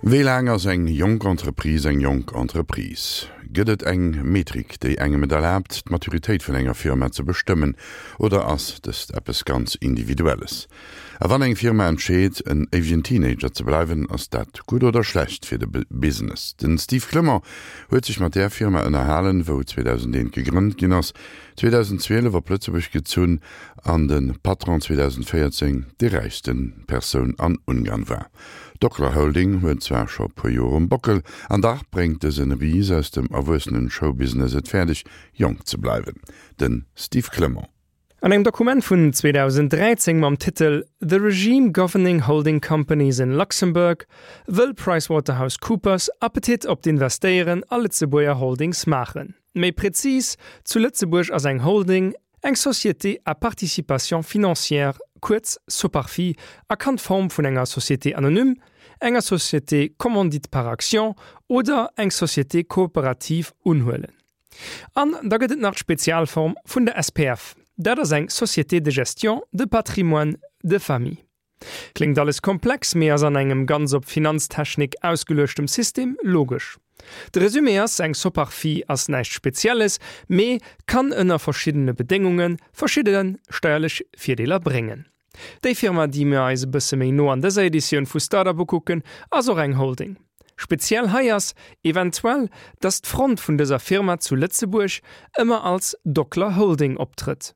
Wéi laang ass eng jonk Entreprise eng jonk Entreprise? Gëtt et eng Metrik, déi engem et erlaabt, d'Maturitéit vun enger Firma ze bestëmmen, oder ass dëst eppes ganz Individuelles? A wann eng Firma entscheet, en éiwegen Teenager ze bleiwen, ass dat gutt oder schlecht fir de Business? Den Steve Clement huet sech mat där Firma ënnerhalen, wou 2001 gegrënnt ginn ass, 2012 op Lëtzebuerg gezunn an de Patron 2014 déi räichste Persoun an Ungarn war. D'Docla Holding huet zwar scho puer Joer um Bockel, an dach bréngt dësen Ris aus dem erwuessenen Showbusiness et fäerdeg, jonk ze bleiwen. Den Steve Clement. An engem Dokument vun 2013 mam Titel The Regime Governing Holding Companies in Luxembourg wëll PricewaterhouseCoopers Appetit op d'Investéieren a Lëtzebuerger Holdings maachen. Méi prezis, zu Lëtzebuerg ass eng Holding eng Société à participation financière, kuerz Soparfi, a kann d'Form vun enger Société anonyme, enger Société commandite par actions oder eng Société coopérative unhuelen. An da gëtt et nach d'Spezialform vun der SPF, dat ass eng Société de gestion de patrimoine de famille. Kléngt alles komplex, mee ass an engem ganz op Finanztechnik ausgeluechtem System logesch. De Resumé ass, eng Soparfi ass näischt Spezielles, mee kann ënner verschiddene Bedéngunge verschidde steierlech Virdeeler bréngen. Déi Firma, déi mir eis e bësse méi no an dëser Editioun vu Startup ukucken, ass och eng Holding. Speziell hei ass eventuell, dass d'Front vun dëser Firma zu Lëtzebuerg ëmmer als Docler Holding optrëtt.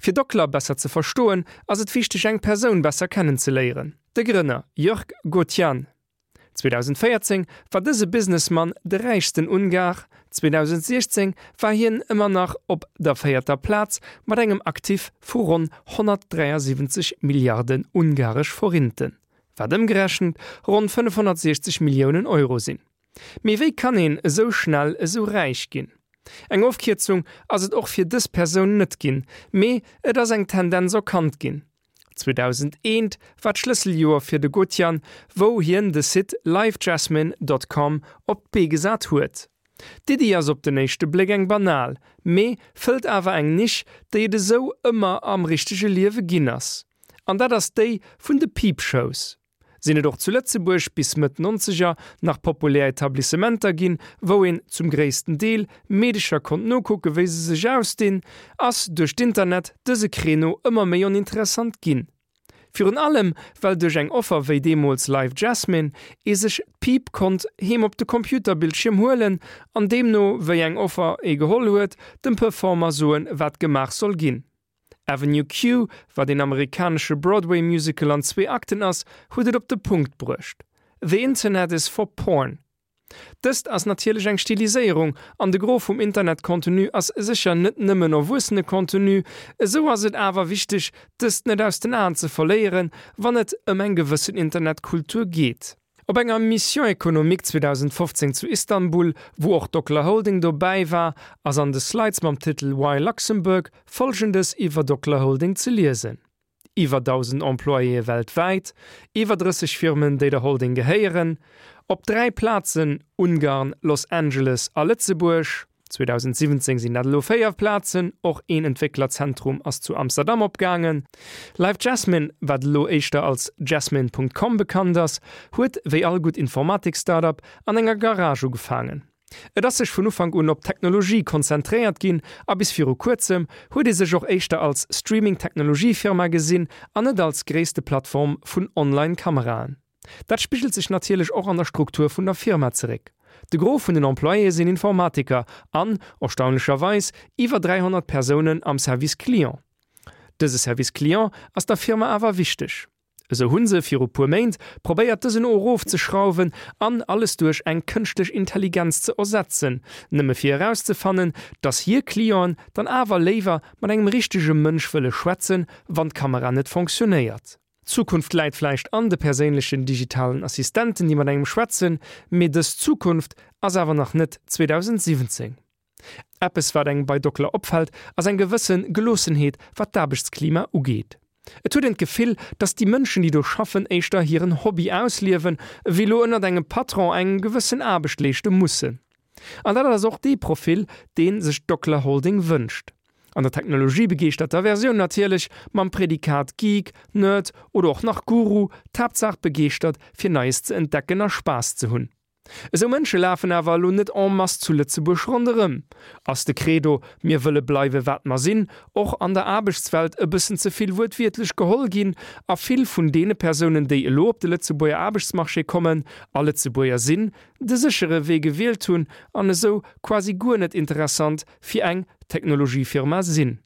Fir Docler besser ze verstoen, ass et wichteg eng Persoun besser kennen ze léieren, de Grënner Jörg Gothian. 2014 war dëse Businessmann de räichsten Ungar, 2016 war hien ëmmer nach op der véierter Plaz mat engem Actif vu ronn 173 Milliarden ungaresch Forinten, wat ëmgerechent ronn 560 Milliounen Euro sinn. Mee wéi kann een esou schnell esou räich ginn? Eng Ofkierzung ass et och fir dës Persoun net ginn, mee et ass eng Tendenz erkannt ginn. 2001 war d'Schlësseljoer fir de Gotian, wou hien de Site livejasmine dot com op d'Bee gesat huet. D'Iddi ass op den éischte Bléck eng banal, mee fëllt awer eng Nisch, déi et esou ëmmer am richtege Liewe ginn ass. An dat ass déi vun de Peep-Shows. Sinn et och zu Lëtzebuerg bis Mëtt Nonzeger nach populär Etablissementer ginn, wou een, zum gréissten Deel, Meedecher konnt nokucke wéi se sech ausdinn, ass duerch d'Internet dëse Créneau ëmmer méi oninteressant ginn. Virun allem well duerch eng Offer wéi deemools Live Jasmine ee sech d'Piip konnt heem op de Computerbildschierm huelen an deemno wéi eng Offer ee geholl huet, dem Performer soen wat gemaach soll ginn. Avenue Q, wat een amerikanesche Broadway-Musical an zwee Akten ass, huet et op de Punkt bruecht, The Internet is for porn. Dëst ass natierlech eng Stiliséierung, an de Gros vum Internet-Contenu ass sécher net nëmmen erwuessene Contenu, esou ass et awer wichteg, dëst net aus den Aen ze verléieren, wann et ëm eng gewëssen Internetkultur geet. Op enger Mission économique 2015 zu Istanbul, wou och Docler Holding dobäi war, ass an de Slides mam Titel Why Luxembourg? Folgendes iwwer Docler Holding ze liesen, Iwwer 1.000 Employéë weltwäit, iwwer 30 Firmen, déi der Holding gehéieren, op 3 Plazen, Ungarn, Los Angeles a Lëtzebuerg. 2017 sinn dat elo 4 Plazen, och een Entwécklerzentrum ass zu Amsterdam opgaangen. Live Jasmine, wat elo éischter als Jasmine. Com bekannt ass, huet wéi all gutt Informatik-Startup an enger Garage ugefaangen. Et ass sech vun Ufank un op d'Technologie konzentréiert ginn a bis viru kuerzem huet ee sech och éischter als Streaming-Technologie-Firma gesinn an net als gréisste Plattform vun Online-Kameraen. Dat spigelt sech natierlech och an der Struktur vun der Firma zeréck. De Gros vun den Employéë sinn Informatiker an, erstaunlecherweis, iwwer 300 Persounen am Service Client. Dëse Service Client ass der Firma awer wichteg. Esou hu se viru puer Méint probéiert dësen erofzeschrauwen an alles duerch eng kënschtlech Intelligenz ze ersetzen, nëmme fir erauszefannen, dass hir Clienten dann awer léiwer mat engem richtege Mënsch wëlle schwätzen, wann d'Kamera net fonctionnéiert. D'Zukunft läit vläicht an de perséinlechen digitalen Assistenten, déi mat engem schwätzen, mee dës Zukunft ass awer nach net 2017. Eppes wat engem bei Docler opfält, ass eng gewësse Geloossenheet wat d'Aarbechtsklima ugeet. Et huet een d'Gefill, dass déi Mënschen déi do schaffen éischter hiren Hobby ausliewen, ewéi lo ënnert engem Patron eng gewëssen Aarbecht leeschte mussen. An dat ass och dee Profil, dee sech d'Docler Holding wënscht. An der technologiebegeeschterter Versioun natierlech, mam Prädikat Geek, Nerd oder och nach Guru, d'Haaptsaach begeeschtert fir Neies ze entdecken a Spaass ze hunn. Esou Mënsche lafen awer elo net en masse zu Lëtzebuerg ronderëm. Ass de Credo mir wëlle bleiwe wat mer sinn och an der Aarbechtswelt e bëssen ze vill wuertwiertlech geholl ginn a vill vun deene Persounen déi elo op de Lëtzebuerger Aarbechtsmarché kommen a Lëtzebuerger sinn, de séchere Wee gewielt hunn an esou quasi guer net interessant fir eng Technologiefirma sinn.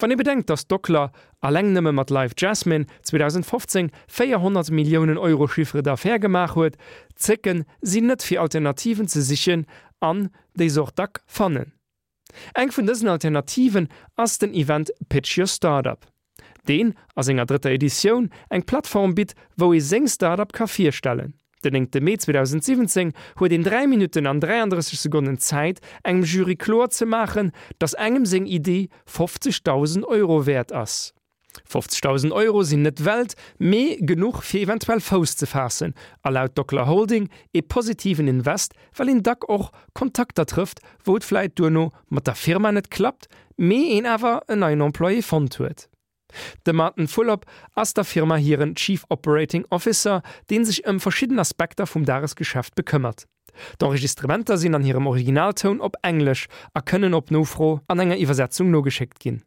Wann ee bedenkt, datt Docler alleng nëmme mat Live Jasmine 2015 400 Milliounen Euro Chiffre d'affaires gemaach huet, zécken si net fir Alternativen ze sichen an déi se och dack fannen. Eng vun dësen Alternativen ass den Event Pitch Your Startup, deen a senger drëtter Editioun eng Plattform bitt, wou ee seng Startup ka virstellen. Den 9 Mee 2017 huet een 3 Minutten an 33 Sekonnen Zäit, engem Jury kloer ze maachen, datt engem seng Iddi 50.000 Euro wäert ass. 50.000 Euro sinn net d'Welt, mee genuch fir eventuell Fouss ze faassen a laut Docler Holding ee positiven Invest, well een dack och Kontakter trëfft, wou et vläit duerno mat der Firma net klappt, mee een awer en neien Employé fonnt huet. De Martin Fulop ass der Firma hiren Chief Operating Officer, dee sech ëm verschidden Aspekter vum Dagesgeschäft bekëmmert. D'Enregistrementer sinn an hirem Originaltoun op Englesch a kënnen op Nofro an enger Iwwersetzung nogeschéckt ginn.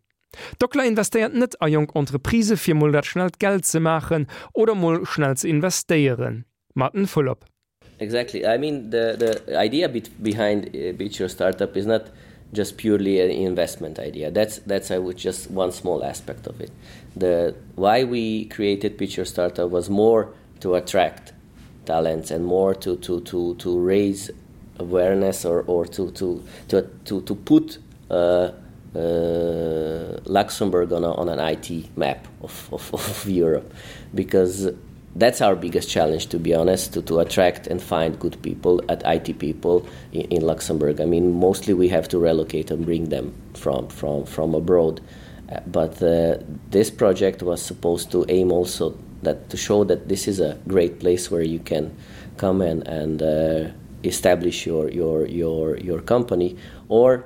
Docler investéiert net a jonk Entreprisë fir mol dat schnellt Geld ze maachen oder mol schnell ze investéieren. Martin Fulop. Exactly. I mean the the idea behind uh, Beach Your Startup is not just purely an investment idea. That's that's I would just one small aspect of it. The why we created Pitch Your Startup was more to attract talents and more to to to to raise awareness or or to to to to, to put uh, uh, Luxembourg on, a, on an IT map of, of, of Europe because that's our biggest challenge to be honest to, to attract and find good people at IT people in, in Luxembourg. I mean mostly we have to relocate and bring them from from from abroad. Uh, but uh, this project was supposed to aim also that to show that this is a great place where you can come and, and uh, establish your, your, your, your company or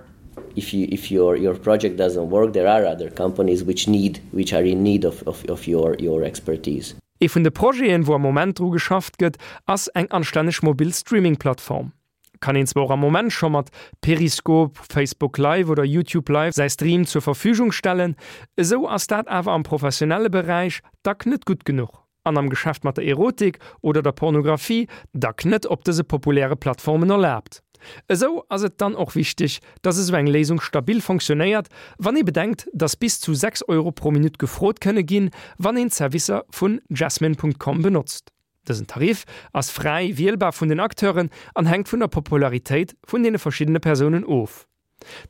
if you if your your project doesn't work there are other companies which need which are in need of, of, of your your expertise. Ee vun de Projeten, wou am Moment dru geschafft gëtt, ass eng anstänneg mobil Streaming-Plattform. Kann een zwar och am Moment scho mat Periscope, Facebook Live oder YouTube Live säi Stream zur Verfügung stellen, esou ass dat awer am professionelle Beräich dack net gutt genuch an am Geschäft mat der Erotik oder der Pornografie dack net op dëse populäre Plattformen erlaabt. Esou ass et dann och wichteg, dass esou eng Léisung stabil fonctionnéiert, wann ee bedenkt, dass bis zu 6 Euro pro Minutt gefrot kënne ginn, wann een d'Servicer vun Jasmine.com benotzt. Dësen Tarif ass fräi wielbar vun den Acteuren an hänkt vun der Popularitéit vun deene verschiddene Persounen of.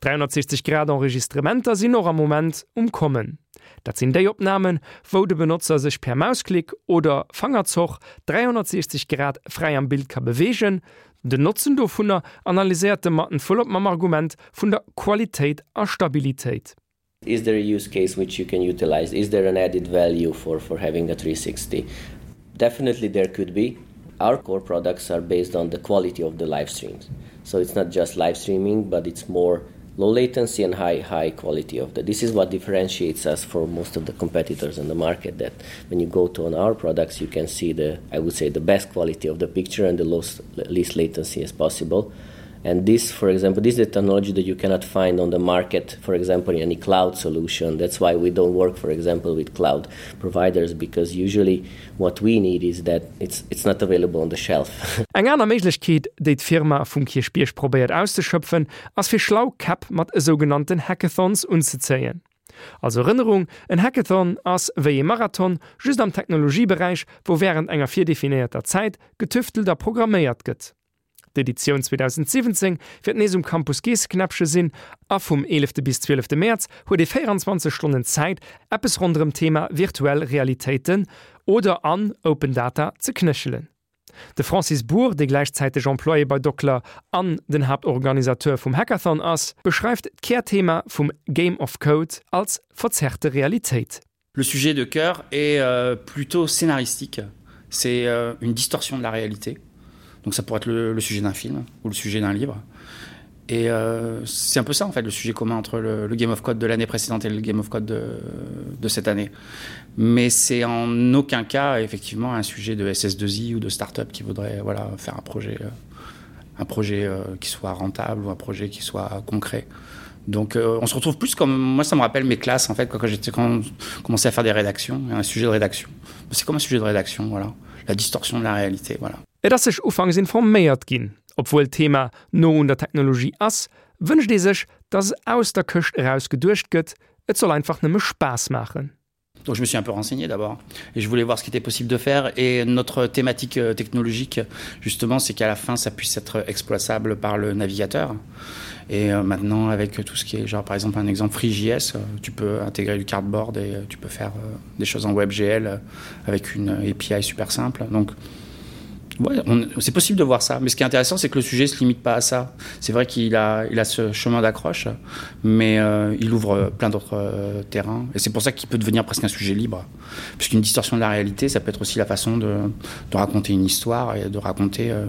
360 Grad Enregistrementer sinn och am Moment um Kommen. Dat sinn déi Opnamen, wou de Benotzer sech per Mausklick oder Fangerzoch 360 Grad fräi am Bild ka beweegen. Den Notzen dovunner analyséiert de Martin Fulop mam Argument vun der Qualitéit a Stabilitéit. Is there a use case which you can utilize? Is there an added value for, for having a 360? Definitely there could be. Our core products are based on the quality of the live streams. So it's not just live streaming, but it's more low latency and high high quality of the this is what differentiates us for most of the competitors in the market that when you go to on our products you can see the I would say the best quality of the picture and the lowest least latency as possible and this for example this is a technology that you cannot find on the market for example in any cloud solution that's why we don't work for example with cloud providers because usually what we need is that it's it's not available on the shelf Eng aner Méiglechkeet, déi d'Firma vum Kierchbierg probéiert auszeschöpfen, ass fir schlau Käpp mat esougenannten Hackathons unzezéien. Als Erënnerung, En Hackathon ass wéi ee Marathon, just am Technologieberäich, wou wärend enger virdefinéierter Zäit getüftelt a programméiert gëtt. D'Editioun 2017 wäert nees um Campus Geesseknäppche sinn a vum 11 bis 12 Mäerz huet ee 24 Stonnen Zäit, eppes ronderëm d'Thema virtuell Realitéiten oder an Open Data ze knéchelen. De Francis Bour, dee gläichzäiteg Employé bei Docler an den Haaptorganisateur vum Hackathon ass, beschreift d'Kärthema vum Game of Code als verzerrte Realitéit. Le sujet de cœur est euh, plutôt scénaristique. C'est euh, une distorsion de la réalité. Donc ça pourrait être le, le sujet d'un film ou le sujet d'un livre. Et euh, c'est un peu ça en fait le sujet commun entre le, le Game of Code de l'année précédente et le Game of Code de, de cette année. Mais c'est en aucun cas effectivement un sujet de SS2I ou de start-up qui voudrait voilà, faire un projet, euh, un projet euh, qui soit rentable ou un projet qui soit concret. Donc euh, on se retrouve plus comme moi ça me rappelle mes classes en fait quand, quand j'étais quand on commençait à faire des rédactions un sujet de rédaction. C'est comme un sujet de rédaction voilà la distorsion de la réalité voilà. Et ass sech ufanks informéiert ginn. Obwuel d'Thema no un der Technologie ass, wënscht ee sech, dass aus der Këscht eraus geduecht gëtt, et soll einfach nëmme Spaass maachen. Donc je me suis un peu renseigné d'abord et je voulais voir ce qui était possible de faire et notre thématique euh, technologique justement c'est qu'à la fin ça puisse être exploitable par le navigateur et euh, maintenant avec tout ce qui est genre par exemple un exemple FreeJS euh, tu peux intégrer du cardboard et tu peux faire des choses en WebGL avec une API super simple donc Ouais, c'est possible de voir ça mais ce qui est intéressant c'est que le sujet se limite pas à ça c'est vrai qu'il a il a ce chemin d'accroche mais euh, il ouvre plein d'autres euh, terrains et c'est pour ça qu'il peut devenir presque un sujet libre puisqu'une distorsion de la réalité ça peut être aussi la façon de, de raconter une histoire et de raconter euh,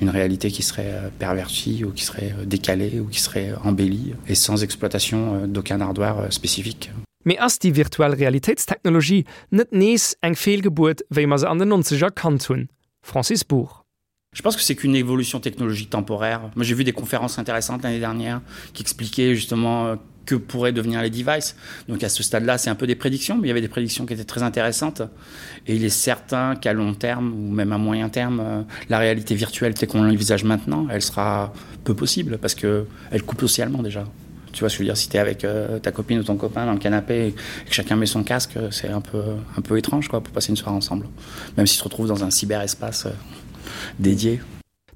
une réalité qui serait euh, pervertie ou qui serait euh, décalée ou qui serait embellie et sans exploitation euh, d'aucun hardware spécifique. Mee ass déi virtuell Realitéitstechnologie net nees eng Feelgebuert, wéi mer se an den Nonzeger kannt hunn? Francis Bour. Je pense que c'est qu'une évolution technologique temporaire. Moi j'ai vu des conférences intéressantes l'année dernière qui expliquaient justement euh, que pourraient devenir les devices. Donc à ce stade-là, c'est un peu des prédictions, mais il y avait des prédictions qui étaient très intéressantes. Et il est certain qu'à long terme ou même à moyen terme, euh, la réalité virtuelle telle qu'on l'envisage maintenant, elle sera peu possible parce qu'elle coupe socialement déjà. Tu vois ce que je veux dire si tu es avec euh, ta copine ou ton copain dans le canapé et que chacun met son casque, c'est un peu, un peu étrange quoi, pour passer une soirée ensemble. Même si tu te retrouves dans un cyberespace euh, dédié.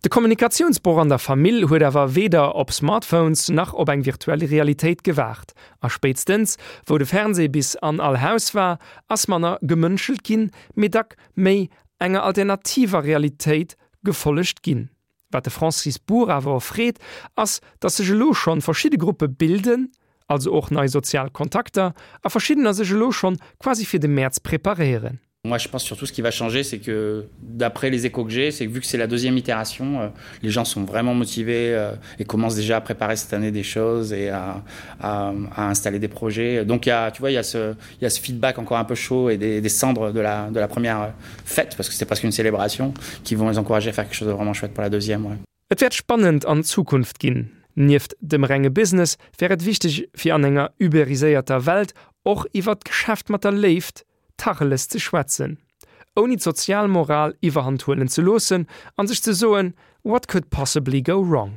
De Kommunikatiounsbroch an der Famill huet awer weder op Smartphones nach op eng virtuell Realitéit gewaart. A spéitstens wou de Fernsee bis an all Haus war, ass manner gemënschelt ginn, mee dack méi enger alternativer Realitéit gefollegt ginn. Wat de Francis Bour awer erfreet, ass, datt sech elo schonn verschidde Gruppe bilden, also och nei sozial Kontakter, a verschiddener sech elo schonn quasi fir de Mäerz preparéieren. Moi je pense surtout ce qui va changer c'est que d'après les échos que j'ai c'est que vu que c'est la deuxième itération euh, les gens sont vraiment motivés euh, et commencent déjà à préparer cette année des choses et à, à, à installer des projets donc il y a tu vois il y a ce il y a ce feedback encore un peu chaud et des, des cendres de la de la première fête parce que c'est presque une célébration qui vont les encourager à faire quelque chose de vraiment chouette pour la deuxième ouais. Et wäert spannend an Zukunft ginn. Nieft dem renge Business wär et wichteg fir an enger uberiséierter Welt och iwwert d'Geschäft mat der Léift Tacheles ze schwätzen, ouni d'sozial Moral iwwerhand huelen ze loossen an sech ze soen, What could possibly go wrong?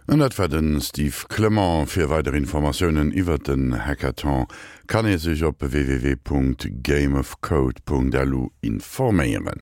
An dat war de Steve Clement. Fir weider Informatiounen iwwert den Hackathon kann ee sech op www.gameofcode.lu informéieren.